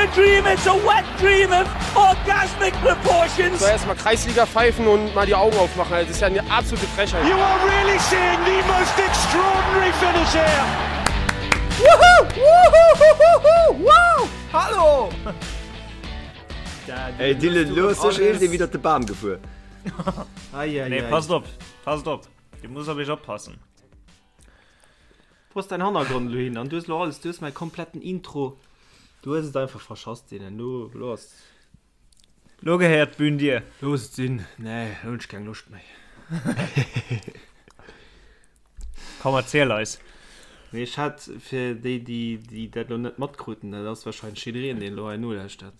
a dream, it's a wet dream of orgasmic proportions. So erstmal Kreisliga pfeifen und mal die Augen aufmachen. Das ist ja eine absolute Frechheit. You are really seeing the most extraordinary finish here. Woohoo! Woohoo! Woo! Hallo! Ey Dylan, lo ass sécher iergendee widder de Bam gefuer. Nee, passt op, passt op. Dir musst op iech oppassen. Wo ass dein Hannergrond elo hin? An du hues elo alles, du hues mäi kompletten Intro, du hues et einfach verschass, Dylan. Lo, lo ass. Lo gehéiert d'Bün dir. Looss et sinn. Nee, lo hunn ech keng Loscht méi. Komm, erziel eis. Nee, ech hat fir déi, déi, déi dat elo net matkruten, dat ass warscheinlech jiddereen, deen elo hei nolauschtert.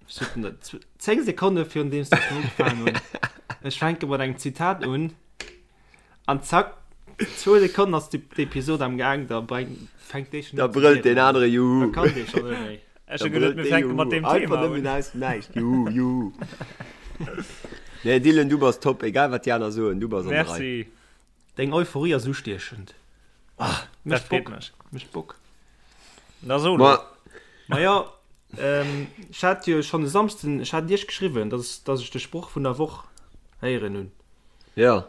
Ech sot den dat 10 Sekonne virun deem s ech ugefaangen hunn. Ech fänke mat engem Zitat un an zack, zwou Sekonnen ass d'Episod am Gaang, da breng, fänkt dee schon Da un ze brëllt deen rieden. anere Da Juhu. kann dee schon net méi. Ech Da hu geduet, brëllt mir dee fänke mat Juhu. deem Einfach Thema nëmmen un. aus dem Näischt. Juhu, juhu. Nee, Dylan, du bass top, egal wat déi aner soen, du bass an der Rei. Merci. Deng Euphorie ass ustiechend. Ah, dat freet mech. Mécht Bock. Na so lo. Ma Maja, ähm, ech hat jo schonn e Samsden, ech hat Iech geschriwwen, dass, dass ech de Sproch vun der Woch héieren hunn. Ja.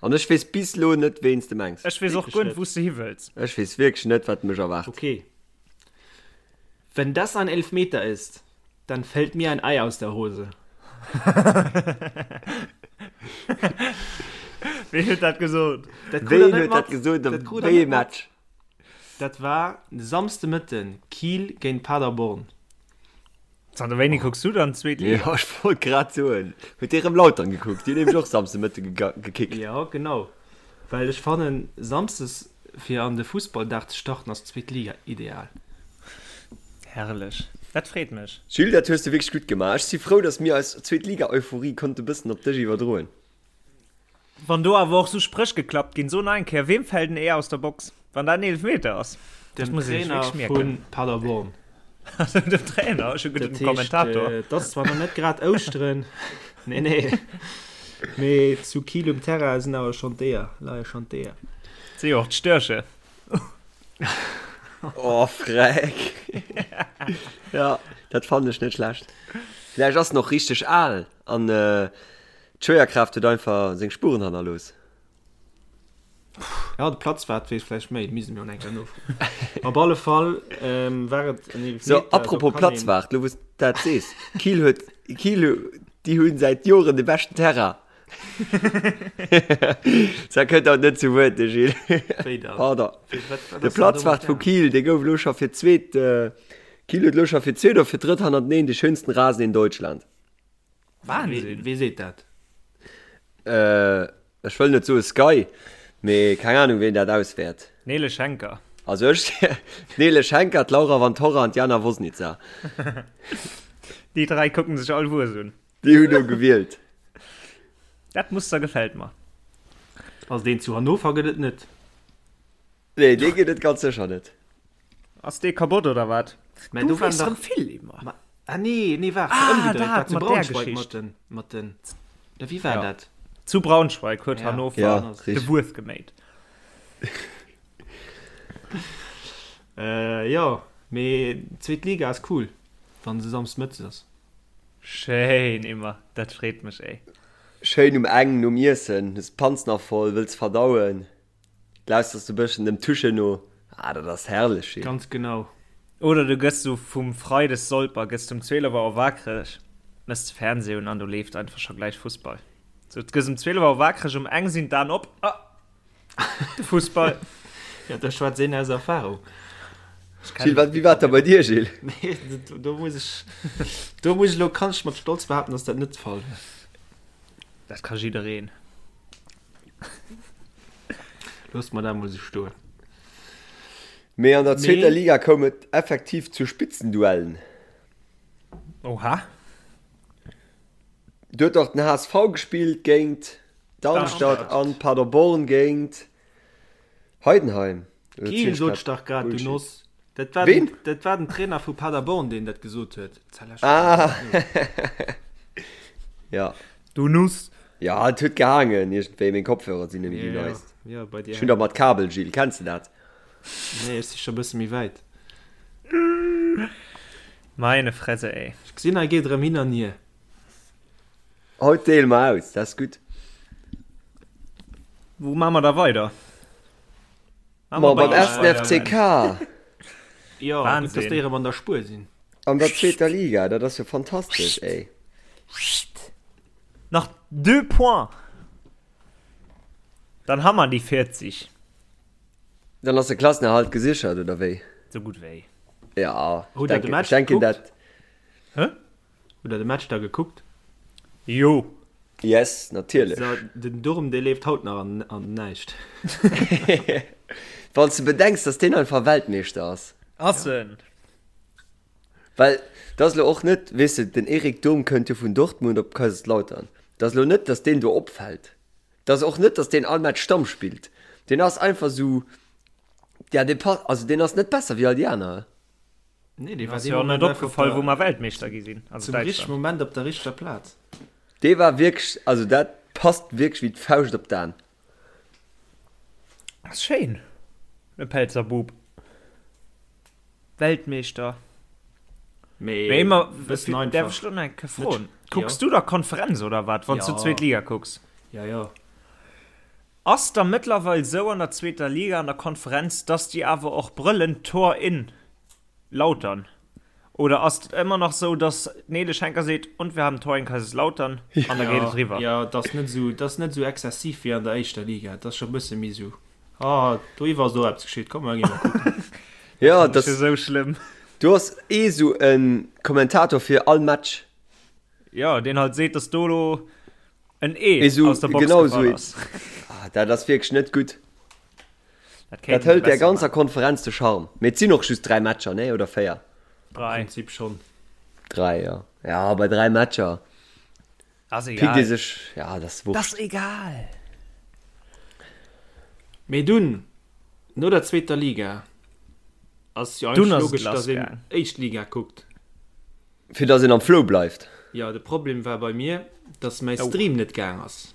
An ech weess bis lo net, ween s de mengs. Ech weess och Wierklech guer net, net. wou s de hi wëlls. Ech weess wierklech net, wat mech erwaart. Okay. Wenn das ein Elfmeter ist, Dann fällt mir ein Ei aus der Hose. Ween huet dat gesot? Dat krut Ween der net huet dat mat. gesot a Dat krut der wéi ee net mat. Match? Dat war Samsde Mëtten, Kiel géint Paderborn. Zanter wéini kucks du dann zweet Liga? Jo, ech wollt grad soen. Huet dee rëm Lautern gekuckt? Déi hunn nämlech och Samsde Mëtte gekickt. Jo, genau. Well ech fannen, Samsdes fir an de Fussballdag ze starten ass d'zweet Liga ideal. Herrlech, dat freet mech. Jules, dat hues de wierklech gutt gemaach. Ech si frou, dass mir eis Zweetliga-Euphorie konnte bëssen op dech iwwerdroen. Wann do awer och sou Spréch geklappt ginn, so nach eng Kéier, Weem fält en Eeër aus der Box, wann dat en Eelefmeter ass? Dat Dem muss ee sech Trainer wierklech mierken. vu Paderborn. Also dem Trainer, ech hu geduet Dat dem heescht, Kommentator. et ass zwar nach net grad Ouschteren, nee, nee, mee zu Kiel um Terrain sinn awer schonn d'Eeër, leie schonn d'Eeër. Si jo och d'Störche. Oh, freck. Ja, dat fannen ech net schlecht. Vläicht ass en och richteg al an d'Schwéierkraaft huet einfach seng Spuren hannerlooss. Ja, de Platzwart weess vläicht méi, misste mir och eng Kéier nofroen. Op alle Fall war et en So, Eelefmeter, do apropos kann een. Platzwart, lo wou s de dat sees, Kiel huet, Kiel, déi hu säit Joren de beschten Terrain. Dat kënnt haut net zu Wuert, de Gilles. Wéi dann? Pardon. Wéi, wat, wat De ass dann do mat Platzwart vu Terrain? Kiel, dee gouf elo scho fir d'zweet, Kiel huet elo scho fir d'zweet oder fir d'drëtt hannerteneen de schönsten Rasen in Deutschland. Wahnsinn! Wee seet dat? Ech wëll net soe Sky, mee keng Ahnung ween dat auswäert. D'Nele Schenker. Also ech, d'Nele Schenker, d'Laura Vantorra an d'Jana Wosnica. Déi 3 kucken sech all Wues un. Déi hunn do gewielt. Dat Muster gefält mer. Also deen zu Hannover gëtt et net. Nee, dee gëtt et ganz sécher net. Ass dee kabott oder wat? Mä Du do waren weess dach rëm vill iwwer. Ma, ah nee, nee, waart, Ah, ëmgedréit, dat war zu mat där Braunschweig Geschicht. mat den, mat den, oder wéi war Ja. dat? Zu Braunschweig huet Ja. Hannover Ja, de richtig. Wues geméit. Äh, jo, mee zweet Liga ass cool, wann se samsdes mëttes ass. Schéin immer, dat freet mech ey. Schéin um eng nom Iessen, hues d'Panz nach voll, wëlls verdauen. Lauschters du bëschen dem Tusche no, ah dat ass herrlech schéin. Ganz genau. Oder du gëss sou vum Freides Solper, gëss du um 12 Auer waakreg, mëss de Fernseh un an do leeft einfach scho gläich Fussball. Sou, du gëss um 12 Auer waakreg, um eng sinn d'Aen op, ah, de Fussball. Ja, da schwätzt een aus Erfahrung. Gilles, wat, wéi war et da bei dir, Gilles? Nee, do muss ech, do muss ech elo, kann ech mat Stolz behaapten, dass dat net de Fall war. Dat ka jiddereen. Loosst mer dat mol sou stoen. Mee an der zweeter Mee. Liga koum et effektiv zu Spitzenduellen. Oha. Do huet och den HSV gespillt géint Darmstadt an Paderborn géint Heidenheim. Oder Kiel ziel ech sot grad ech dach grad, du Bullshit? Noss. Dat war Ween? den, dat war den Trainer vu Paderborn, deen dat gesot huet. Ah. Ja. Du Nuss. Ja, et huet gehaangen iergendwéi. Meng Kopfhörer sinn nemmi déi Ja, neist. ja, bei dir Ech hunn der mat Kabel, Gilles. Kenns de dat? Nee, ech si scho bësse méi wäit. Meine Fresse, ey. Ech gesinn, hei geet erëm hin an hier. Haut deele mer aus, dat ass gutt. Wou maache mer da weider? Ma beim ersten FCK. Jo, gutt, dass déi erëm an der Spuer sinn. An der zweeter Liga, dat ass jo fantastesch, ey. Nach deux Points, dann ha mer déi 40. Dann ass de Klassenerhalt gesichert, oder wéi? Sou gutt wéi. Ja, ech denken, ech denken dat. Hä? Hutt der de Match da gekuckt? Jo. Yes, natierlech. So, den Durm, dee leeft haut nach an, an näischt. Wann s de bedenks, dass deen einfach Weltmeeschter ass. Ass en. Well dat ass elo och net, weess de, den Erik Durm kënnt jo vun Dortmund op Kaiserslautern. Dat ass elo net, dass deen do opfält. Dat ass och net, dass deen all Match Stamm spillt. Deen ass einfach sou, ja, dee passt, also deen ass net besser wéi all déi aner. Nee, dee war Ass jo och net opgefall, wou mer Weltmeeschter gi sinn. Also zum richtegen Moment op der richteger Plaz. Dee war wierklech, also dat passt wierklech wéi d'Fauscht op d'An. Ass schéin, e Pelzer Bub. Weltmeeschter. Mee Mee ëmmer, bëssen einfach. Däerf ech lo nach eng Kéier froen? Kucks Jo. du da Konferenz oder wat, wann s du Ja. zweet Liga kucks? Ja, ja. Ass da mëttlerweil sou an der zweeter Liga an der Konferenz, dass déi awer och brëllen Tor in Lautern? Oder ass et ëmmer nach sou, dass d'Nele Schenker seet, und wir haben Tor in Kaiserslautern an da geet et eriwwer? Jo, et ass net sou, et ass net sou exzessiv wéi an der éischter Liga. Et ass scho e bësse méi sou, ah, doiwwer ass och eppes geschitt, komm mer gi mol kucken. Jo, Dat ass jo sou schlëmm. Do ass ee sou e Kommentator fir all Match. Jo, deen halt seet, dass do elo En Ee Esou, aus der Box genau gefall esou. ass. Ah, dat ass wierklech net gutt. Dat Dat kéinte se hëlt der besser ganzer maachen. Konferenz de Charme. Mee et sinn och just 3 Matcher, nee? Oder 4? Am 3. Prinzip schonn. 3, jo. Ja, bei 3 Matcher Ass pickt ee egal. sech, ja, dat ass Dat ass wurscht. egal. Mee dunn, no der zweeter Liga, ass jo Dunn eigentlech ass et logesch, lass dass een gaang. éischt Liga kuckt. Fir dass een am Flow bleift. Jo, de Problem war bei mir, dass mäi Oh. Stream net gaang ass.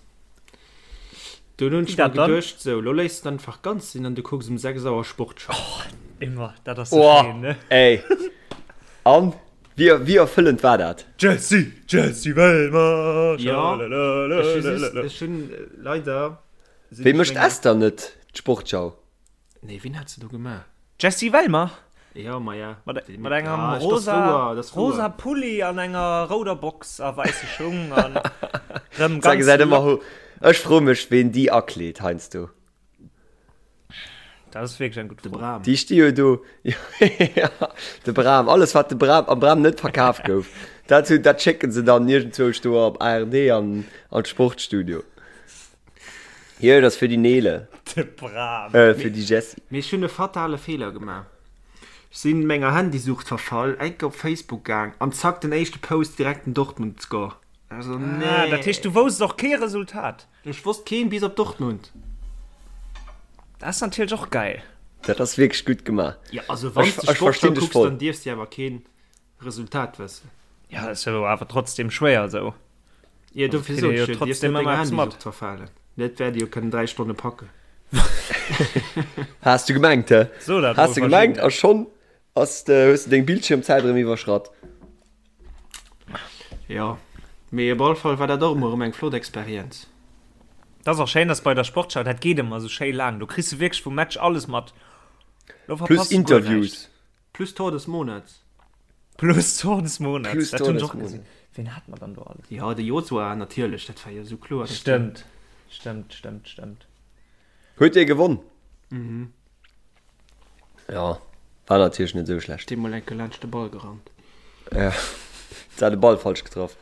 Dunn hunn Wéi ech mer dat dann? geduecht, sou, lo léiss de einfach ganz sinn an du kucks um 6 Auer Sportschau. Oh, immer, dat ass sou Oh, schéin, ne? ey. An? Wéi, wéi erfëllend war dat? Jessy, Jessy Wellmer, Jo, ech hu just, schalalala. ech hunn leider sinn Wéi ech mécht menger. Esther net d'Sportschau? Nee, wien hat se do gemaach? Jessy Wellmer? Ja, ma ja. Mat, Déi- mat engem Ah, das rosa, wouer, das wouer. rosa Pulli an enger rouder Box a wäisse Schung an rëm Da ganz gesäit ëmmer lock. ho. Ech froe mech, ween déi akleet heiansdo. Dat ass wierklech eng gutt De Fro. Bram. Déi sti jo do. Ja, de Bram. Alles, wat de Bram, am Bram net verkaf gouf, dat, hu- dat schécken se dann iergendzwousch do op ARD an, an d'Sportstudio. Hier, dat ass fir déi Nele. De Bram. Äh, fir déi Jessie. Mee ech hunn e fatale Feeler gemaach. Ech sinn menger Handysucht verfall, enke op Facebook gaang an zack den éischte Post direkt den Dortmund Score. Also nee. Ah, dat heescht du wousst och kee Resultat? Ech wosst keen bis op Dortmund. Dat ass natierlech och geil. Dat ass wierklech gutt gemaach. Ja also wann s de Ech, ech Sportschau verstinn dech kucks, voll. dann dierfs de awer keen Resultat wëssen. Ja, ass jo awer trotzdem schwéier esou. Jo, dofir kritt sot ee jo ech jo, dierfs trotzdem net ëmmer denger eppes mat. Handysucht verfalen. Dat wäert ee jo kënnen 3 Stonne packen. Has du gemengt, hä? So dat Has mol du gemengt Virginia. a schonn ass de, hues du deng Bildschirmzäit erëm iwwerschratt. Jo, mee op all Fall war dat och emol erëm eng flott Experienz. Dat ass och schéin, dass bei der Sportschau, dat geet ëmmer esou schéi laang, do kriss du wierklech vum Match alles mat. Do Plus verpasst du guer näischt. Interviews. Plus Tor des Monats. Plus Tor des Monats. Plus Dat Tor hunn ech des och gesinn. Monats. Ween hat mer dann do alles? Jo, de Josua natierlech, dat war jo esou kloer. dass deen- Stëmmt, stëmmt, stëmmt, stëmmt. Huet dee gewonn? Mhm. Ja, war natierlech net esou schlecht. Dee mol enke laanscht de Ball gerannt. Ja, se hat de Ball falsch getraff.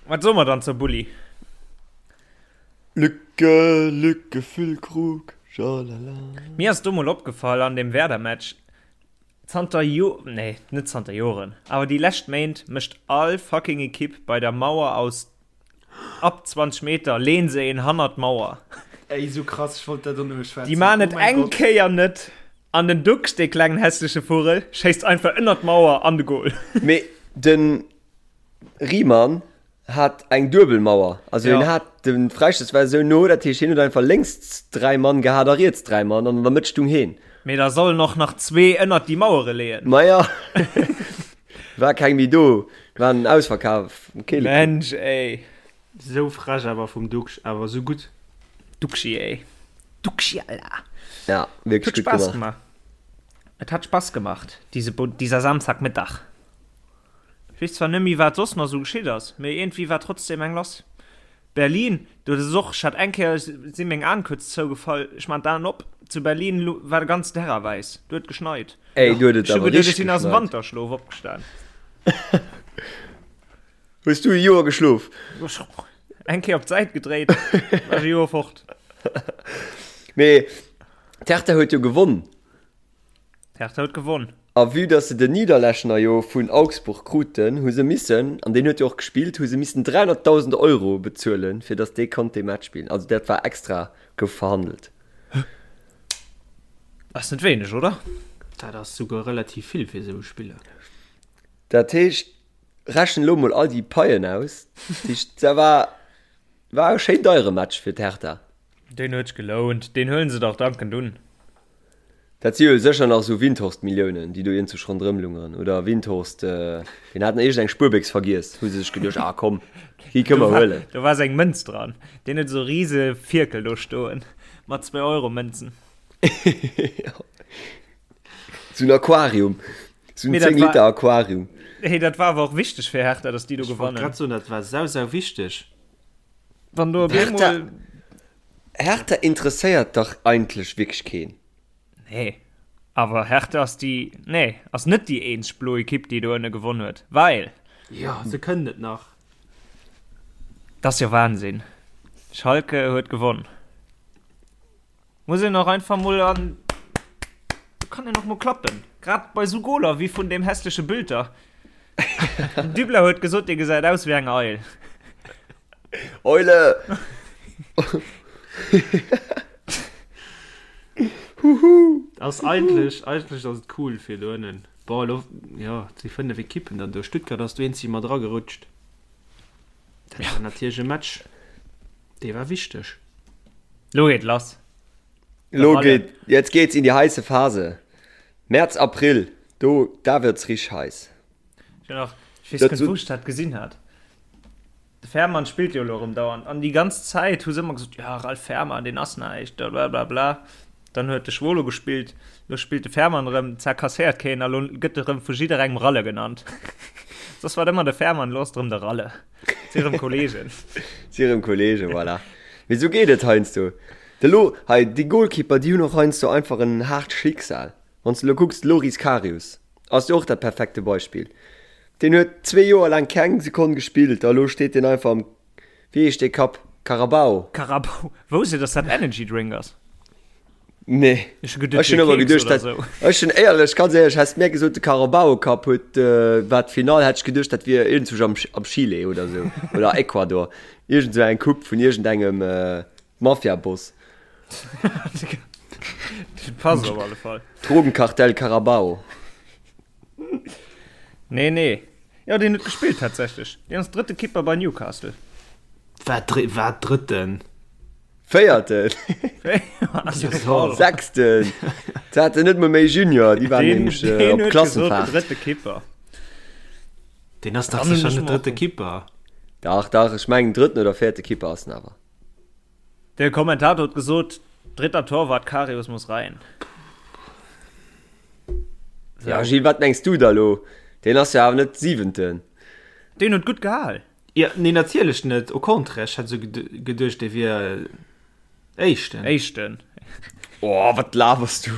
Wat soe mer dann zur Bulli? Lücke, Lücke, Füllkrug, schalala. Mir ass do mol opgefall an dem Werder-Match, zanter Jo, nee, net zanter Joren, awer déi lescht Méint mécht all fucking Ekipp bei der Mauer aus ab 20 Meter leen se een hannert d'Mauer. Ey, sou krass, ech wollt dat och nëmme schwätzen. Déi maan et Oh mäin eng Gott. Kéier net an den Duxch, dee klengen hässleche Vugel, schéisst einfach ënnert d'Mauer an de Goal. Mee de Riemann hat eng duebel Mauer, also hien Ja. hat de Fräistouss war esou no, dat heescht hien huet einfach lénks 3 Mann gehat a riets 3 Mann an an der Mëtt stung heen. Mee da sollen och nach zwee ënnert déi Mauere leeën. Maja. War keng méi do, war en Ausverkaf am Keele. Mensch ey. Sou frech awer vum Duxch, awer sou gutt. Duxchi ey. Duxchi Alter. Ja, wierklech gutt gemaach. Gemaach. Et hat Spaß gemacht, diese, dieser Samstagmittag. Ech weess zwar net méi wat soss nach sou geschitt ass, mee iergendwéi war trotzdem eng lass. Berlin, do ass och, ech hat eng Kéier, si meng Aen kuerz zougefall, ech man d'Aen op, zu Berlin war de ganzen Terrain wäiss, do huet geschneit. Ey, do huet et Ech hu awer geduecht, ech richteg sinn aus dem geschneit. Wanterschlof opgestan. Hues du e Joer geschlof? Eng Kéier op d'Säit gedréit, war ech e Joer fort. Mee d'Hertha huet jo gewonn. D'Hertha huet gewonn. A vue dass se den Niederlechner jo vun Augsburg kruten, hu se missen, an deen huet jo och gespillt, hu se missen 300.000 Euro bezuelen, fir dass dee konnt dee Match spillen. Also dat war extra, gouf verhandelt. Ass net wéineg, oder? Dat ass souguer relativ vill fir esou e Spiller. Dat heescht, rechen elo mol all déi Paien aus. Dat heescht, dat war, war e schéin deiere Match fir d'Hertha. Deen huet sech gelount, deen huelen se dach dankend un. Dat si jo sécher nach esou Windhorst-Milliounen, déi do iergendwou ronderëm lungeren. Oder Windhorst, deen hat nach iergend eng Spuerbéchs vergiess, hu se sech geduecht, ah komm, déi kënne mer huelen. Do war seng Mënz dran. Deen huet esou rise Fierkel do stoen mat Zwee-Euro-Mënzen. Esou en Aquarium, esou en 10 Liter Aquarium. Hey, dat war awer och wichteg fir Hertha, datt déi do Ech wollt gewannen. grad soen, dat war sau, sau wichteg. Wann do op eemol. Hertha interesséiert dach eigentlech wierklech keen. Nee, awer Hertha ass déi, nee, ass net déi eenzeg blo Ekipp, déi do ënne gewonn huet, well. Jo, se kënnen et nach. Dat ass jo Wahnsinn. Schalke huet gewonn. Muss een och einfach mol an, do kann een och mol klappen, grad bei sou Goler wéi vun deem hässleche Bülter. Den Dübler huet gesot, dee gesäit aus wéi eng Eil. Eule! Huhu! Ass eigentlech, eigentlech ass et cool fir do ënnen. Bon, elo, jo, et si 5 Ekippen dann do. Stuttgart ass do eenzeg mat eragerutscht. Dat war natierlech e Match, dee war wichteg. Lo geet lass. Lo geet, jetzt geht's in die heiße Phase. März, April, do, da wird's richteg heiß. Ech hunn och, ech weess net, wou ech dat gesinn hat. De Fährmann spillt jo elo erëm dauernd an déi ganz Zäit hu se ëmmer gesot, jo Ralf Fährmann, deen ass näischt, blablabla. Dann huet de Schwolo gespillt, elo spillt de Fährmann erëm, zwar kasséiert keen a lo gëtt e rëm vu jidderengem Ralle genannt. Soss war et ëmmer de Fährmann, elo ass et erëm de Ralle. Si erëm Kollegen. Si erëm Kollegen, voilà. Mee esou geet et heiansdo. De Lo, hei, déi Goalkeeper, déi hunn och heiansdo einfach en haart Schicksal. Wann s de elo kucks, de Loris Karius ass jo och dat perfekte Beispill. Deen huet zwee Joer laang keng Sekonn gespillt a lo steet deen einfach am Wéi heescht dee Cup? Carabao? Carabao? Wousst Dir, dass dat Energy Drink ass? Nee. Ech hu geduet, Ech hunn wier ëmmer Keks geduecht, oder dat, sou. ech hunn éierlech, ganz éierlech, häss mär gesot, de Carabao Cup huet, war d'Finall, hätt ech geduecht, dat wier iergendzwousch am, am Chile oder sou, oder Ecuador. Iergend sou eng Coupe vun iergendengem Mafiaboss. Dat passt op alle Fall. Drogenkartell Carabao. Nee, nee. Jo, deen huet gespillt tatsächlech. Deen ass drëtte Kipper bei Newcastle. Wat, wat drëtten? Véierten. Sechsten. Se haten net mol méi Junior, déi waren nämlech äh, op Klassenfahrt. Drëtte Kipper. Deen ass dach sécher net drëtte Kipper. Dach, dach, ech mengen drëtten oder véierte Kipper ass en awer. De Kommentator huet gesot, dritter Torwart, Karius muss rein. So. Ja, Gilles, wat mengs du da lo? Deen ass jo awer net siwenten. Deen huet gutt gehal. Ja, nee, natierlech net. Au contraire, ech hat sou geduecht, dee wier éischten. Éischten. Oh, wat labers du?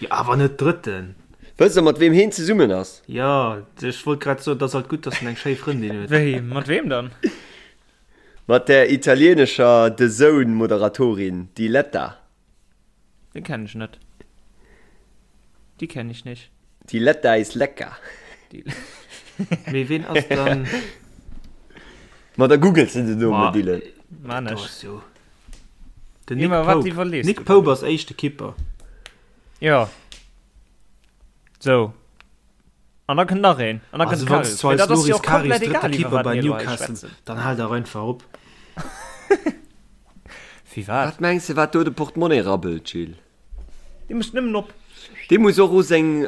Jo, awer net drëtten. Wësst der, mat weem heen zesummen ass? Jo, ech wollt grad soen, et ass alt gutt, dass en eng schéi Frëndin huet. Wéi, mat weem dann? Mat der italienescher The Zone Moderatorin Diletta. Déi kennen ech net. Die kenn ich nicht. Diletta is lecker. Mee ween ass dann. Ma da googles de den Numm, Dylan. Man ech. Den Nick Pope. Nick Pope ass éischte Kipper. Jo. Sou. An da kënnt nach een. An da kënnt Also wann s Karius. du Mee eis dat ass jo Loris och Karius komplett drëtte egal, iwwer Keeper wat bei mir elo hei Newcastle, schwätzen. dann hal dach einfach op. Wéi wat? Wat mengs de wat do de Portemonnaie rabbelt, Gilles? Dee mécht nëmmen op. Dee muss och u seng.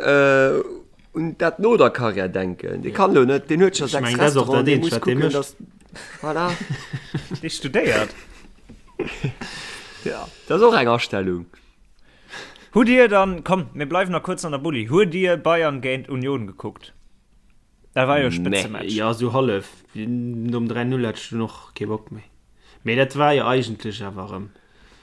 un dat no der Karriär denken. Dee kann elo net, deen huet scho Ech 6 mengen, dat ass och Restauranten, dat dee Eenzegt, muss wat dee kucken, mécht. dass, voilà. Dee studéiert. Ja, dat ass och eng Astellung. Hutt Dir dann, komm, mir bleiwen nach kuerz an der Bulli, hutt Dir Bayern géint Union gekuckt? Dat war jo e Spëtzematch. Jo, sou hallef. Nom 3-0 hat ech dunn och kee Bock méi. Mee dat war jo eigentlech awer erëm.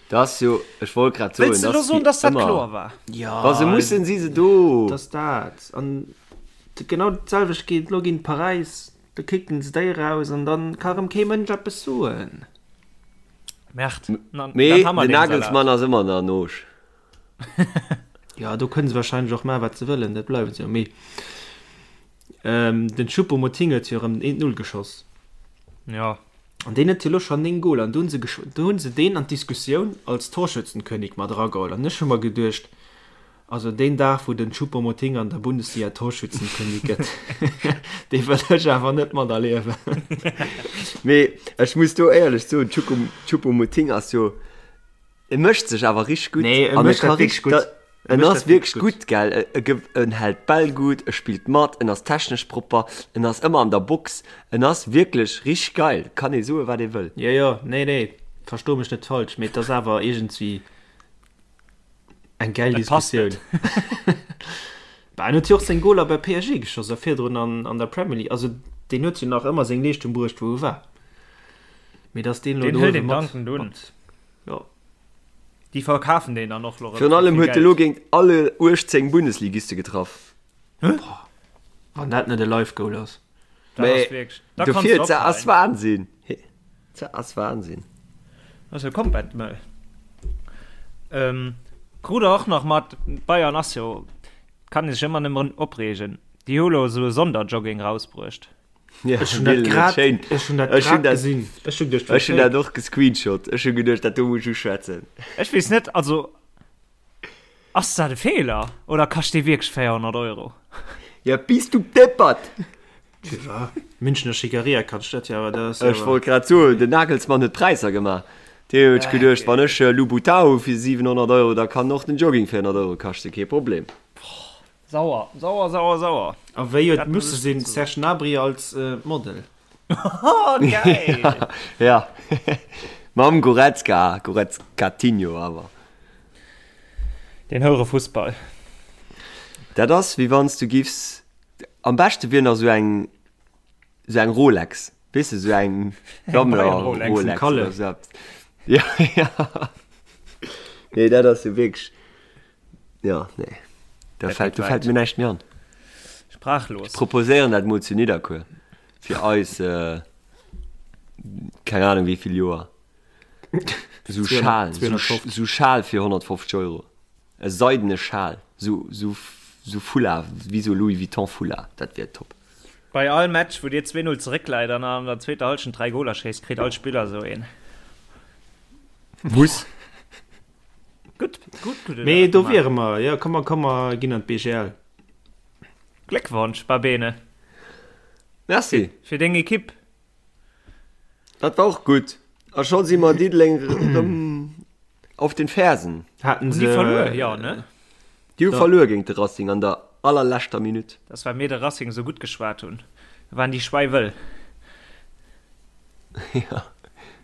Dat ass jo, ech wollt grad soen, Wëlls de dat elo ass soen, wéi dass dat ëmmer. kloer war? Jo, Wa se mussen, si se do. Et ass dat. An genau dat selwecht geet elo géint Paräis. Da kicken se déi eraus an da ka erëm kee Mënsch eppes soen. Merde, dann Mee ha mer den deen Salat. Nagelsmann ass ëmmer nach noosch. Jo, do kënne se warscheinlech och maachen, wat se wëllen, dat bleiwen se jo. Mee den Choupo-Moting huet jo erëm den 1-0 geschoss. Jo. An deen huet jo elo schonn 9 Goler an do hunn se do hunn se deen an d'Diskussioun als Torschützenkönig mat erageholl. An ech hu mer geduecht, also deen Dag wou den Choupo-Moting an der Bundesliga Torschützenkönig gëtt, dee wëll ech awer net materliewen. Mee ech muss do éierlech soen, Choupo-Moting ass jo, E mécht sech awer richteg gutt. Nee, e An e mécht ka dat wierklech richteg, gutt. E en mécht ass dat wierklech wierklech gutt. gutt, gell. E, e ge, en hält d'Bäll gutt, e spillt mat, en ass technesch propper, en ass ëmmer an der Box. En ass wierklech richteg geil. Kann ee soe wat ee wëll. Jo, jo, nee, nee, versto mech net falsch, mee et ass awer iergendwéi eng gäil Et passt Diskussioun. net. Bah, en huet jo och seng Goler bei PSG geschoss a virdrun an, an der Premier League. Also deen huet jo nach ëmmer seng Leeschtung bruecht, wou e war. Mee dass deen elo Deen do hëlt uewe een mat, dankend un. mat, jo. Déi verkafen deen dann och lo rëm Virun fir allem vill huet e lo Geld. géint alle 18 Bundesligiste getraff. Wann dat net e Live Goal ass. Dat ass Mee wierklech, da kanns dofir, de dat ass ophalen. Wahnsinn. Dat ass Wahnsinn. Dat ass jo komplett mëll. Ähm, krut der och nach mat, Bayern ass jo, kann ee sech ëmmer nëmmen opreegen, déi hu lo esou e Sonderjogging rausbruecht. Ja, Ech hunn dat grad, ech hunn dat Ech hunn grad dat, gesinn. Ech hunn geduecht, ech hunn dat och gescreenshot. Ech hu geduecht, dat do muss ech uschwätzen. Ech weess net, also ass dat e Feeler oder kascht dee wierklech 400 Euro? Ja, bis du deppert! Münchner Schickeria kascht dat jo, awer dat ass jo Ech wollt grad soen, den Nagelsmann huet d'Präisser gemaach. Deen huet geduecht, wann ech Louboutin hu fir 700 Euro, da kann och den Jogging 400 Euro kaschten, kee Problem. Sauer, sauer, sauer, sauer. A wéi huet Dat muss musse ech sinn, soen. Serge Gnabry als Model. Oh, geil! Ja, mam Goretzka, Goretzkatinho awer. Den houre Fussball. Dat ass wéi wann s du giffs, am beschte wier nach sou eng, sou eng Rolex, weess de, sou eng Sammler Bayern-Rolex. Rolex Vum Kalle. oder sou eppes. Ja, ja. Nee, dat ass jo wierklech. Ja, nee. Da Dat fällt, geet do fällt wäit. mir näischt méi an. Sprachlos. Ech proposéieren dat mol zu Nidderkuer. Fir eis, äh, keng Ahnung wéi vill Joer. Sou Schal, sou, 250. sou Schal fir 150 Euro. E seidene Schal. Sou, sou, sou Foulard, wéi sou Louis Vuitton Foulard. Dat wier top. Bei all Match, wou dir 2-0 zeréckläit an an der zweeter Hallschent 3 Goler schéisst, kritt all Spiller sou een. Muss. Gutt, gutt, gutt. Mee do wiere mer, jo, komm mer, komm mer ginn an d'BGL. Gléckwonsch, Babene. Merci. Fir deng Ekipp. Dat war och gutt. A scho si mer Diddeleng erëm auf den Fersen. Haten Hunn déi se verluer? Jo, ne? Déi hu verluer géint de Racing an der allerleschter Minutt. Dat ass well mir de Racing esou gutt geschwat hunn. Da waren déi schwäiwëll. Ja,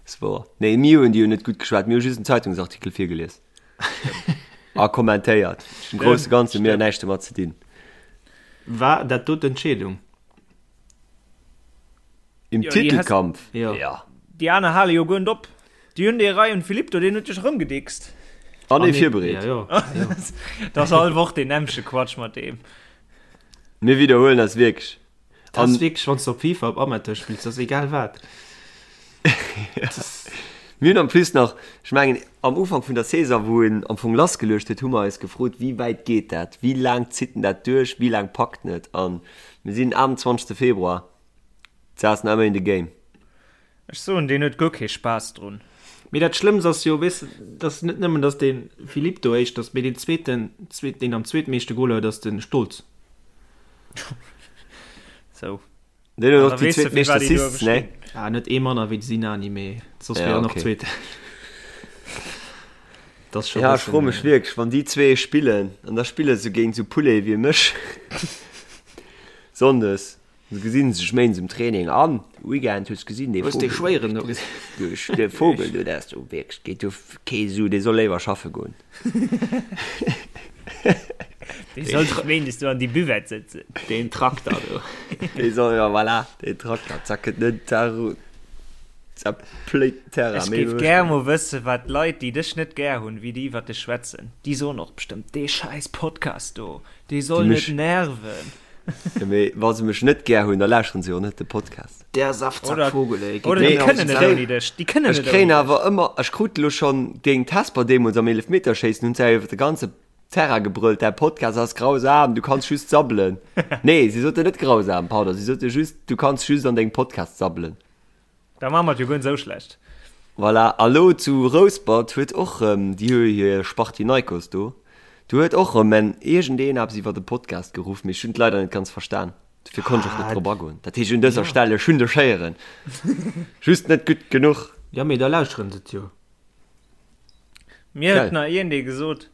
ass wouer. Nee, mir hunn déi jo net gutt geschwat, mir hu just en Zeitungsartikel virgelies. A kommentéiert. Am grousse Ganze hu mir näischt domat ze dinn. War dat do d'Entscheedung? Im Jo, déi has- Titelkampf? Jo. Ja. Déi aner hale jo guer net op. Déi hunn dee Ryan Philippe do, deen huet sech erëmgedickst. An ee virbereet. Ja, jo. Ja, jo. Dat ass all Woch deen nämmleche Quatsch mat deem. Mir widderhuelen eis wierklech. Dat ass wierklech, wann s de op FIFA op Amateur spills, dat ass egal wat. Mir hunn en plus nach, ech mengen am Ufank vun der Saison, wou en am Fong lassgeluecht huet, hu mer eis gefrot, wéi wäit geet dat, wéi laang zitt en dat duerch, wéi laang packt en et? A mir sinn 28. Februar, et ass nach ëmmer in the game. Ech soen, deen huet guer kee Spaass drun. Mee dat Schlëmmst ass jo, weess de, dass net nëmmen, dass de Philippe do éischt ass, mee deen zweeten, deen am zweetmeeschte Goler huet, ass de Stolz. Sou. Deen huet An och da déi weess de, zweet meescht firwat déi do Assists, ne? bestinn. Ah, net ee manner wéi de Sinani, mee soss Ja, wier en och okay. Zweeten. Dat ass scho Ja, ech bëssen, froe mech wierklech, wann déi zwee spillen, an da spille se géint esou Poulet wéi mech. Sonndes gesinn se sech méindes um Training an Weekend hues gesinn dee Hues dee Schwéieren do gesinn? Du dee Vogel do, dat ass do wierklech, geet do kee Su, dee soll léiwer schaffe goen. Dee soll sech méindes do an déi Buvette sëtzen. Deen Trakter do. Dee soll, jo voilà, deen Trakter, zack, et net zerpléit den Terrain. Ech géif gär mol wëssen, wat d'Leit, déi dech net gär hunn, wéi déi iwwer dech schwätzen. Déi soen och bestëmmt, dee schäiss Podcast do, dee soll net nerven. Jo, mee wa se mech net gär hunn, da lauschteren se jo net de Podcast. Der Saftsackvogel, ey. Oder déi kënnen net ouni dech. Déi kënnen net Ech kréien ouni dech. awer ëmmer, ech krut elo schonn géint Hesper deemools am Eelefmeterschéissen, hunn se awer iwwer de ganze Terrain gebrëllt, Däi Podcast ass grausam, du kanns just sabbelen. Nee, si soten net grausam, pardon, si sote just, du kanns just an dengem Podcast sabbelen. Da maache mer et jo guer net esou schlecht. Voilà, a lo zu Rouspert huet och rëm, déi hu jo hir Spartinaikos do, do huet och rëm en iergendeen eppes iwwer de Podcast geruff, mee ech hunn et leider net ganz verstan, dofir konnt ech och net drop agoen. Dat heescht un dëser Stell, ech hunn dech héieren, just net gutt genuch. Jo, mee da lauschteren se et jo. Mir huet nach iergendee gesot,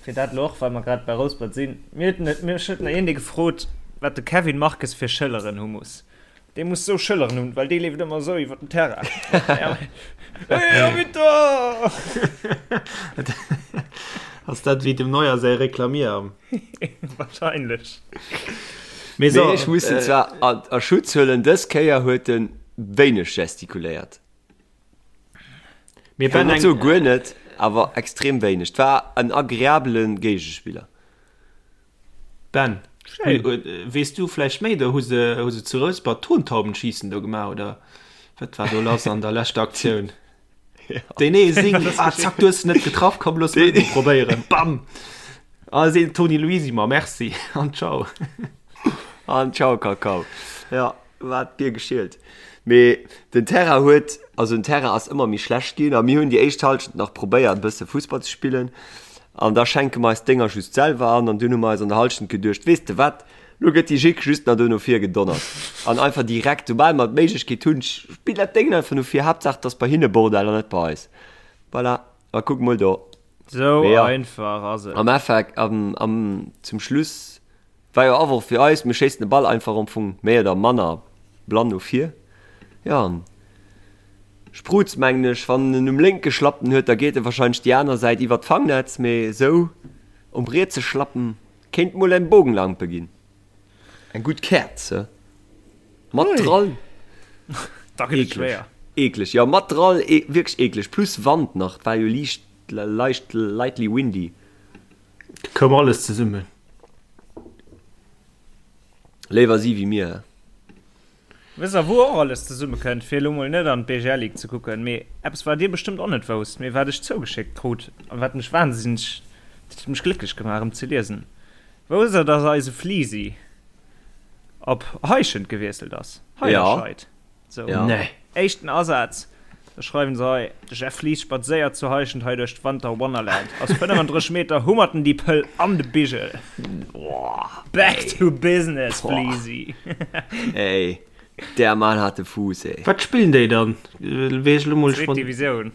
fir dat elo och, well mer grad bei Rouspert sinn, mir huet, mech huet nach iergendee gefrot, wat de Kevin Marques fir Schëlleren hu muss. Dee muss sou Schëlleren hunn, well dee leeft ëmmer sou iwwer den Terrain. Hey, Arbitter! Ass dat wéi dem Neuer säi Reklamierarm? Wahrscheinlech. Mee so, Mee ech muss en zwar a, a Schutz huelen, dës Kéier huet en wéineg gestikuléiert. Mir Ich will ben net eng, soe guer net, awer extrem wéineg. Et war en agreabele Géigespiller. Ben, Schéin. weess du vläicht méi? Do hu se, hu se zu Rouspert Tontaubenschießen do gemaach, oder wat war do lass an der leschter Aktioun? Deen ee sing, ah zack, du hues net getraff, komm looss mech mol probéieren, bam! Ah seet Toni Luisi, ma merci an ciao. An ciao Kakao. Ja, war d'Bier geschielt. Mee den Terrain huet, also den Terrain ass ëmmer méi schlecht ginn a mir hunn déi éischt Halschent nach probéiert e bësse Fussball ze spillen an da schenke mer eis d'Dénger just selwer an an dunn hu mer eis an der Halschent geduecht, weess de wat, lo gëtt déi Jick just nach do no vir gedonnert an einfach direkt, soubal mer d'Méiglechkeet hunn, spill dat Déngen einfach no vir, Haaptsaach et ass bei hinne Bordell an net bei eis. Voilà, a kuck mol do. Sou Mee ja, einfach ass et. am Effekt, am, am, zum Schluss War jo Awurf fir eis, mir schéissen de Ball einfach am Fong méi oder manner blann no vir. Jo an Sprutz mengen ech, wann en um lénke Schlappen huet, da geet e wahrscheinlech déi aner Säit iwwert d'Fangnetz, mee esou um rietse Schlappen kéint mol eng Bogenlampe ginn. Eng gutt Käerz, he? Mat Drall. Da gëtt et schwéier. Eekleg, jo mat Drall, wierklech eekleg, plus Wand nach, et war jo liicht, leicht, lightly windy. Koum alles zesummen. Léiwer si wéi mir, he? Wësst der wou och alles zesumme kënnt, fir elo mol net an d'BGL Ligue ze kucken, mee eppes wat dir bestëmmt och net wousst, mee wat ech zougeschéckt krut an wat mech wahnsinneg, dat huet mech glécklech gemaach erëm ze liesen, Wousst der dass eise Fliisi op Heischent gewiesselt ass? Heiderscheid. Sou, Ja. Nee. éischten Asaz, da schreiwen se hei, De Jeff Lies spadséiert zu Heischent hei duerch d'Wanter Wonnerland. Aus 35 Meter hummert en déi Pëll an de Bigel. Back to business, Fliesi! Ey, der Mann hat de Fuuss, ey. Wat spillen déi dann? Weess ech lo mol Zweet spont. Divisioun.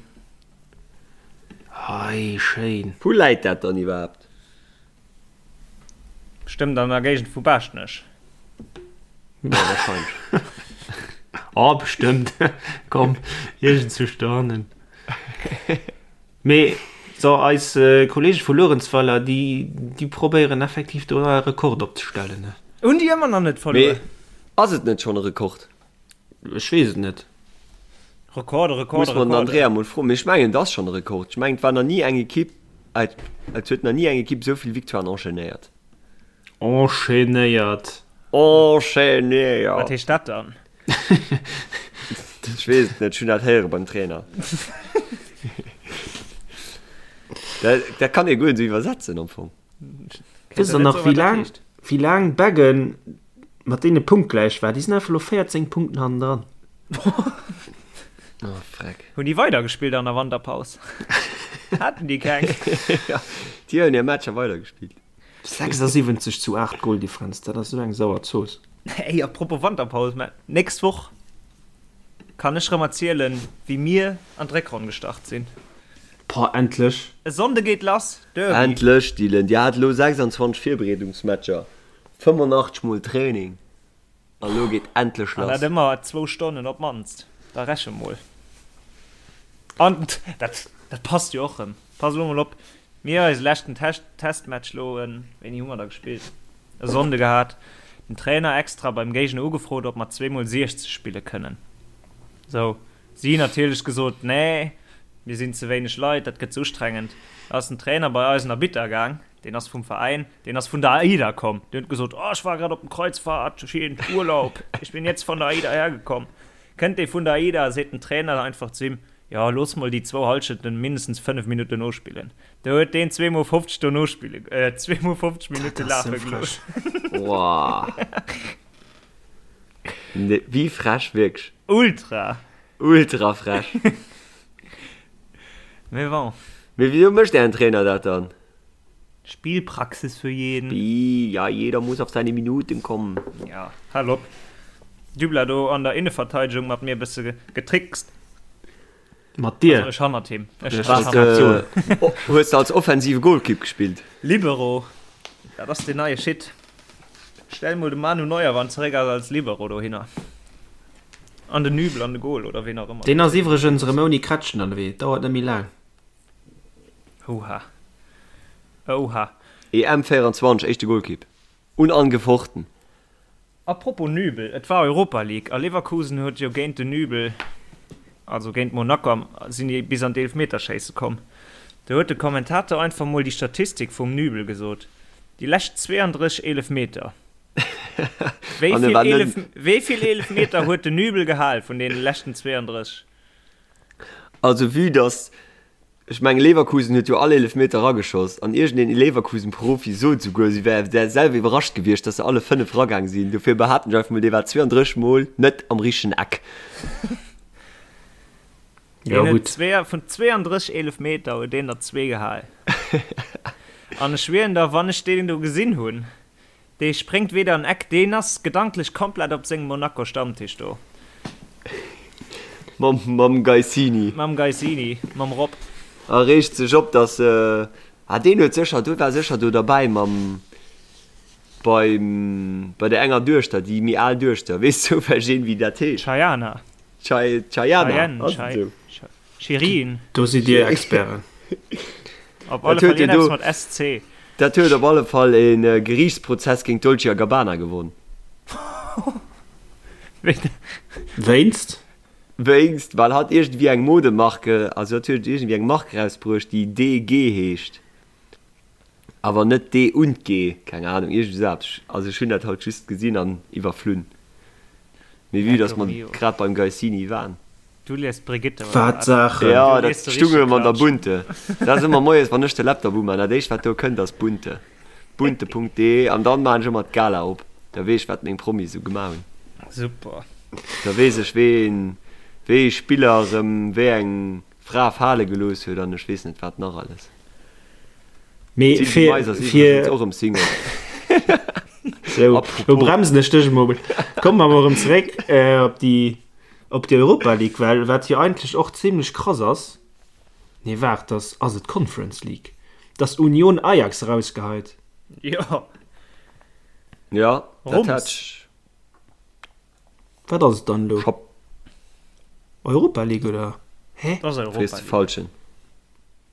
Ei, schéin. Wou läit dat dann iwwerhaapt? Bestëmmt an der Géigend vu Baaschtnech. Ja, wahrscheinlech. Oh, bestëmmt. Komm, iergendzwousch dohannen. Mee so, eis Kollege vu Luerenzweiler, déi, déi probéieren effektiv do e Rekord opzestellen, ne? Hunn déi ëmmer nach net verluer? Mee ass et net schonn e Rekord? Ech weess et net. Rekorde, Rekorde, Muss mer den Rekorde. Andrea mol froen. Mee ech mengen, et ass schonn e Rekord. Ech mengen, et war nach ni eng Ekipp, et et huet nach ni eng Ekipp esou vill Victoiren enchaînéiert. Enchaînéiert. Enchaînéiert! Wat heescht dat dann? Ech weess et net, ech hunn dat héiere beim Trainer. Dat, dat kann ee guer net esou iwwersetzen am Fong. Wësst der nach, wéi laang, wéi laang Beggen mat deene punktgläich war? Déi sinn einfach elo 14 Punkten hannendran. Oh, freck. Hunn déi weidergespillt an der Wanterpaus? Haten déi keng? Ja, déi hunn hir Matcher weidergespillt. 76 zu 8 Goldifferenz, dat ass esou eng sauer Zooss. Ey, apropos Wanterpaus, mä nächst Woch kann ech rëm erzielen, wéi mir an d'Réckronn gestart sinn. Boah, endlech! E Sonnde geet lass, Derby. Endlech, Dylan! Dir hat elo 26 Virbereedungsmatcher, 85 mol Training. A lo geet endlech lass. An dat ëmmer zwou Stonnen op d'mannst. Da reche mol. An dat, dat passt jo och rëm. Pass elo mol op, mir eise leschten Test, Testmatch lo, wéini hu mer da gespillt? E Sonnde gehat. Den Trainer extra beim Géigner ugefrot, ob mer zweemol 60 spille kënnen. Sou, si natierlech gesot, nee, mir sinn ze wéineg Leit, dat gëtt ze ustrengend. Da ass den Trainer bei eisen Arbitter gaang. Deen ass vum Veräin, deen ass vun der AIDA komm. Deen huet gesot, oh, ech war grad op dem Kreuzfahrt, scheen Urlaub, ich bin jetzt von der AIDA hergekommen. Kënnt dee vun der AIDA, seet den Trainer einfach zu him, jo, looss mol déi zwou Hallschenten mindestens 5 Minutten nospillen. Do huet deen zweemol 50 do nospille, äh, zweemol 50 Minutte lafe gelooss. Wow. Nee, wéi frech, wierklech. Ultra. Ultra frech. Mee bon. Mee wisou mécht ären Trainer dat dann? Spielpraxis für jeden. Bi, ja, jeder muss auf seine Minuten kommen. Ja, hal op. Dübler do an der Inneverteidegung mat mir e bësse getrickst. Mat dir? Also ech hannert him. Ech Was, hannert äh, oh, hues de als offensive Golkipp gespillt? Libero. Dat ass den neie Shit. Stell mol de Manu Neuer wann zeréck ass als Libero dohinner. An den Nübel an de Goal oder ween och ëmmer. Deen ass iwwregens erëm ouni Krätschen ënnerwee. Dauert net méi laang. Oha. Oha. EM 24, éischte Golkipp. Unangefochten. A propos Nübel, et war Europa League a Leverkusen huet jo géint den Nübel, also géint Monaco am, sinn déi bis an d'Eelfmeterschéisse komm. Do huet de Kommentator einfach mol déi Statistik vum Nübel gesot, déi lescht 32 Eelefmeter. Wéi An e vill war net. Eelef, wéi vill Eelefmeter huet den Nübel gehal vun deene leschten 32? Also vue dass, ech mengen Leverkusen huet jo all Eelefmeter erageschoss an iergendeen Leverkusen-Profi sot esouguer, si wär selwer iwwerrascht gewiescht, dass se alle 5 eragaang sinn. Dofir behaapten ech einfach mol, dee war 32 mol net am richtegen Eck. Jo Deen huet gutt. zwee, vun 32 Eelefmeter huet deen der zwee gehal. An ech schwieren der, wann ech deen do gesinn hunn, Dee spréngt weder an Eck, deen ass gedanklech komplett op sengem Monaco Stammtisch do. Mam, mam Geissini. Mam Geissini, mam Rob. A reegt sech op, dass, ah deen huet sécher, do war sécher do derbäi mam, beim, bei der enger Duechter, déi méi al Duechter, weess zoufälleg een, wéi dat heescht? Chayana. Chay, Chayana, Chayenne, ass et Chay, esou? Chay. Shirin. Do sidd Dir Experten. Op alle Dat huet Fall jo do, iergendepps mat SC. dat huet op alle Fall e Geriichtsprozess géint Dolce a Gabbana gewonn. Wéinst? Wéinst, well hatt iergendwéi eng Modemarke, also hatt huet iergendwéi eng Mark erausbruecht, déi DG heescht. Awer net D und G, keng Ahnung, iergend esou eppes. Also ech hunn dat haut just gesinn an iwwerflunn. Mee vue dass mer grad beim Geissini waren. Du liest Brigitte, oder Wat wat? Saachen! Jo, Du dat liest de stung richtege erëm an der Klatsch. Bunte. Dat ass ëmmer moies, wann ech de Laptop umaan, dat éischt wat do kënnt ass Bunte. Bunte.de an dann maan ech ëmmer d'Gala op. Da weess ech wat meng Promis esou gemaach hunn. Super. Da weess ech ween, wéi ee Spiller erëm wéi eng Fra fale gelooss huet an ech weess net wat nach alles. Mee D'Sylvie fir, Mais ass fir iwwregens och erëm Single. Sou, lo Apropos. bremsen ech dech emol. Komme mer emol erëm zeréck äh, op déi op déi Europa League, well wat jo eigentlech och zimlech krass ass, nee waart, dass ass et d'Conference League, dass Union Ajax erausgeheit. Jo. Ja, dat Rums. hat ech. Wat ass et dann elo? Scho. Europa League oder? Hä? Dat ass Europa Frees de League. Falschen.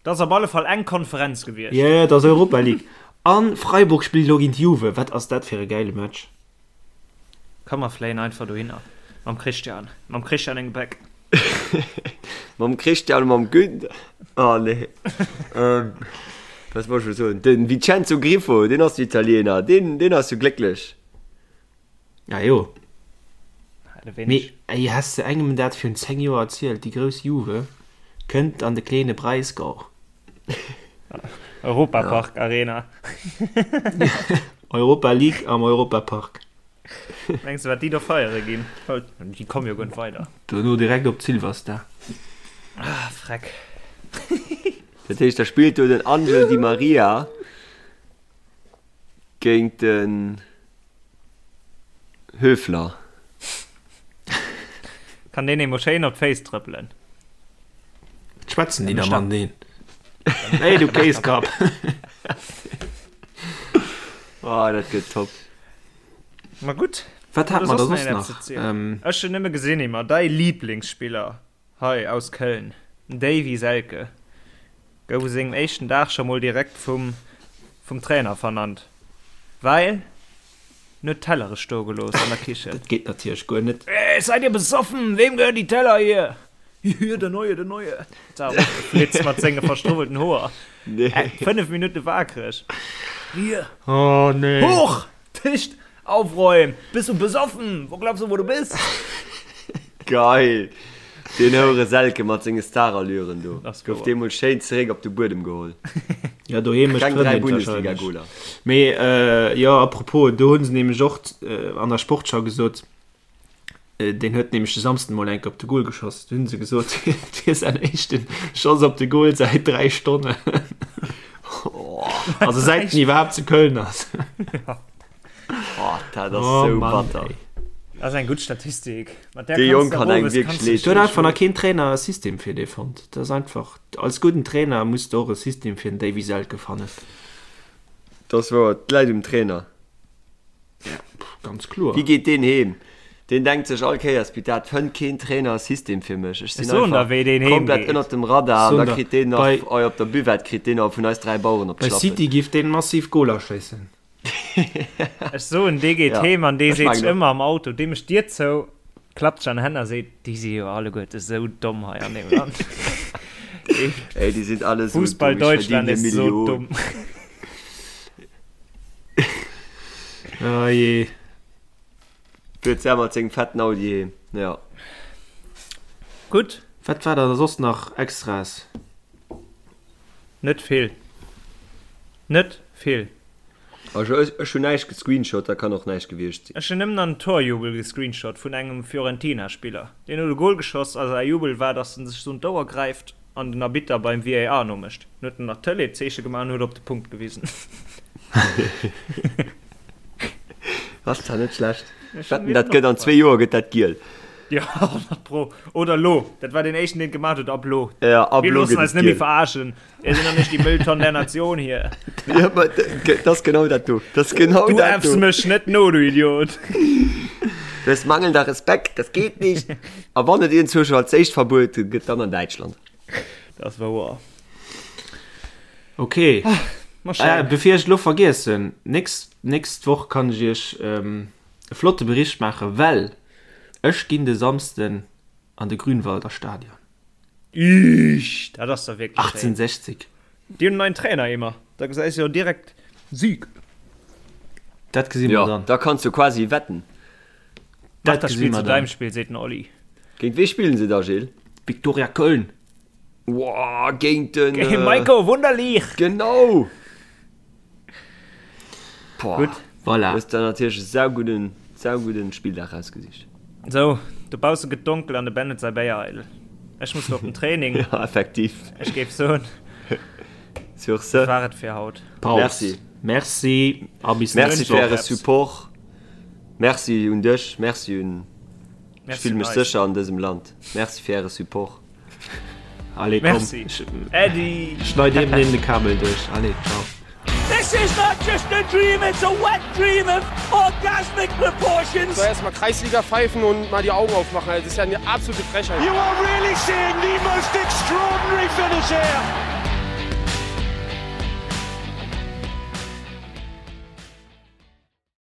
Dat ass op alle Fall eng Konferenz gewiescht. Jo, jo, et ass Europa League. An Freiburg spillt elo géint Juve. Wat ass dat fir e gäile Match? Komm mer fléien einfach dohinner mam Christian, mam Christian eng Gepäck. Mam Christian a mam Günther. Oh nee. Ähm, was wollt ech elo soen? Den Vincenzo Grifo, deen ass jo Italiener, deen, deen ass jo glécklech. Ja jo. Mee Mee ey, häss de engem dat virun 10 Joer erzielt, déi grouss Juve kënnt an de kleene Breisgau. Europapark Arena. Europa League am Europapark. Mengs de wat déi do feiere ginn? Déi komme jo guer net weider. Dono direkt op d'Silverstar. Ah freck. Dat heescht, da spillt do den Angel Di Maria Géint den Höfler. Kann deen eemol schéin op d'Féiss trëppelen. Wat schwätzen déi da mateneen? Hey du Kéiskapp! Oh, dat gëtt top. Ma gutt. Wat hat mer da soss nach? Ech hunn nëmme gesinn, Emma, däi Liblingsspiller hei aus Köln, den Davy Selke, gouf u sengem éischten Dag scho mol direkt vum vum Trainer vernannt, well en huet Tellere stoe gelooss an der Kichen. Dat geet natierlech guer net. Hey, seid ihr besoffen? Wem gehören die Teller hier? Hier, der Neue, der Neue. Da flitzt mat senge verstruwwelten Hoer. Nee. 5 Minutte waakreg. Hier. Oh nee. Hoch! Tisch aufräumen! Bist du besoffen? Wo glaubst du, wo du bist? Geil! Deen Houre Selke mat senge Starallüren do. Das Gouf deemol schéin zeréck op de Buedem geholl. Ja, doheem mécht Kleng 3 d'Frëndin wahrscheinlech. Bundesliga-Goler. Mee jo, apropos, do hu se nämlech och an der Sportschau gesot, deen huet nämlech de Samsden mol enke op de Goal geschoss, do hu se gesot, et wier säin éischte Schoss op de Goal säit 3 Stonnen. Also säit en iwwerhaapt zu Köln ass. Oh, dat ass Oh sou Mann, batter. ey. Dat ass eng gutt Statistik. Mat där Dee kanns Jong de kann engem owes wierklech kanns de leed Do huet doen. einfach nach keen Trainer e System fir dee fonnt. Dat ass einfach, als gudden Trainer muss de och e System fir den Davy Selke fannen. Dat ass wouer, et läit um Trainer. Ja, ganz kloer. Wéi geet deen heem? Deen denkt sech all Kéiers, bitt dat fënnt keen Trainer e System fir mech. Ech sinn Ech soen der, einfach wéi deen heem komplett geet. ënnert dem Radar an Soen da der, kritt deen nach, bei, oi, op der Buvette kritt deen nach vun eis 3 Baueren op bei d'Schlappen. City giff deen massiv Goler schéissen. Ech soen, dee geet Ja, heem an dee ech seet sech mengen och. ëmmer am Auto, dee mécht d'Dier zou, klappt sech an d'Hänn a seet, déi si jo alleguerte sou domm hei an deem Land. Dee Ey, déi sinn alle sou Fussball dumm, ech Deutschland verdien ist hir so Millioun. dumm. Oh jee. Fuert selwer mat sengem fetten Audi heem, ja. Gutt. Wat war da soss nach Extraes? Net vill. Net vill. Also ech, ech hunn näischt gescreenshot, da kann och näischt gewiescht sinn. Ech hunn nëmmen an Torjubel gescreenshot vun engem Fiorentina-Spiller. Deen huet e Gol geschoss a säi Jubel war, dass en sech sou un d'Ouer gräift an den Arbitter beim VAR nomécht. Dann huet en nach d'Tëlee-Zeeche gemaach an huet op de Punkt gewisen. Ass zwar net schlecht. Ech hunn Wetten, mir dat den gëtt an opgefall. zwee Joer gëtt dat giel. Jo, 100 pro. Oder lo. Dat war deen éischten, deen et gemaach huet. Ab lo. Ja, ab Mir lo loossen gëtt eis et net méi giel. verarschen. Mir sinn doch nicht die Mülltonne der Nation hier. Ja, ma dat ass genau dat do. Dat ass genau Du dat äffs do. mech net no, du Idiot. Das ist mangelnder Respekt, das geht nicht. A wann et iergendwou scho als éischt verbuet gëtt, dann an Däitschland. Dat ass wouer. Okay. Ma Ah, schéin. bevir ech lo vergiessen, nächst, nächst Woch kann ech iech ähm, e flotte Bericht maachen, well ech ginn de Samsden an de Grünwalder Stadion. Iisch, dat ass da wierklech schéin. 1860. Déi hunn en neien Trainer, Emer. Da gesäis jo direkt Sieg. Dat gesi mer Ja, dann. da kanns du quasi wetten. Mach Dat das gesi Spiel mer zu dann. deinem Spiel, seet den Olli. Géint wee spillen se da, Gilles? Viktoria Köln. Woah, géint den. Géint Maiko Wunderlich! Genau! Boah. Gutt. Voilà. Hues der natierlech e saugudden, saugudden Spilldag rausgesicht. Sou, dobausse gëtt donkel an de Ben huet säi Béier eidel. Ech muss lo op den Training. Ja, effektiv. Ech géif soen, Sur ce. dat war et fir haut. Paus. Merci. Merci a bis Merci nächst fir Woch. äre Support. Merci un dech, merci un. Ech Merci fille un mech eis. sécher an dësem Land. Merci fir äre Support. Allez, komm. Merci. Äddi. Schneid eben den de Kabel duerch. Allez, ciao. This is not just a dream, it's a wet dream of orgasmic proportions. So erstmal Kreisliga pfeifen und mal die Augen aufmachen. Das ist ja eine absolute Frechheit. You are really seeing the most extraordinary finish here.